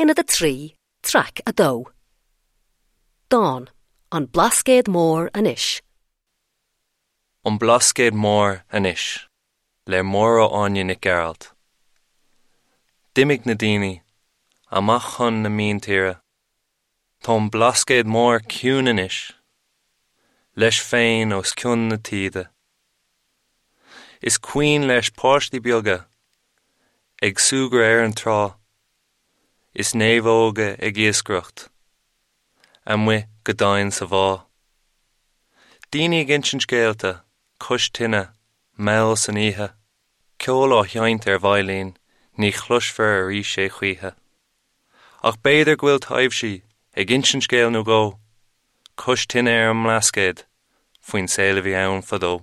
Aonad 3, Traic 2. Dán, An Blascaod Mór Anois. An Blascaod Mór Anois le Máire Áine Nic Gearailt. D'imigh na daoine amach chun na míntíre. Tá an Blascaod Mór ciúin anois, leis féin os cionn na taoide. Is cuimhin leis páistí beaga ag súgradh ar an trá is naomhóga ag iascaireacht amuigh go domhain sa bhá. Daoine ag insint scéalta cois tine mall san oíche, ceol á sheinnt ar veidhlín ní chloisfear arís é choíche. Ach b'fhéidir go bhfuil taibhsí ag insint scéal nó dhó cois tine ar an mBlascaod faoin saol a bhí ann fadó.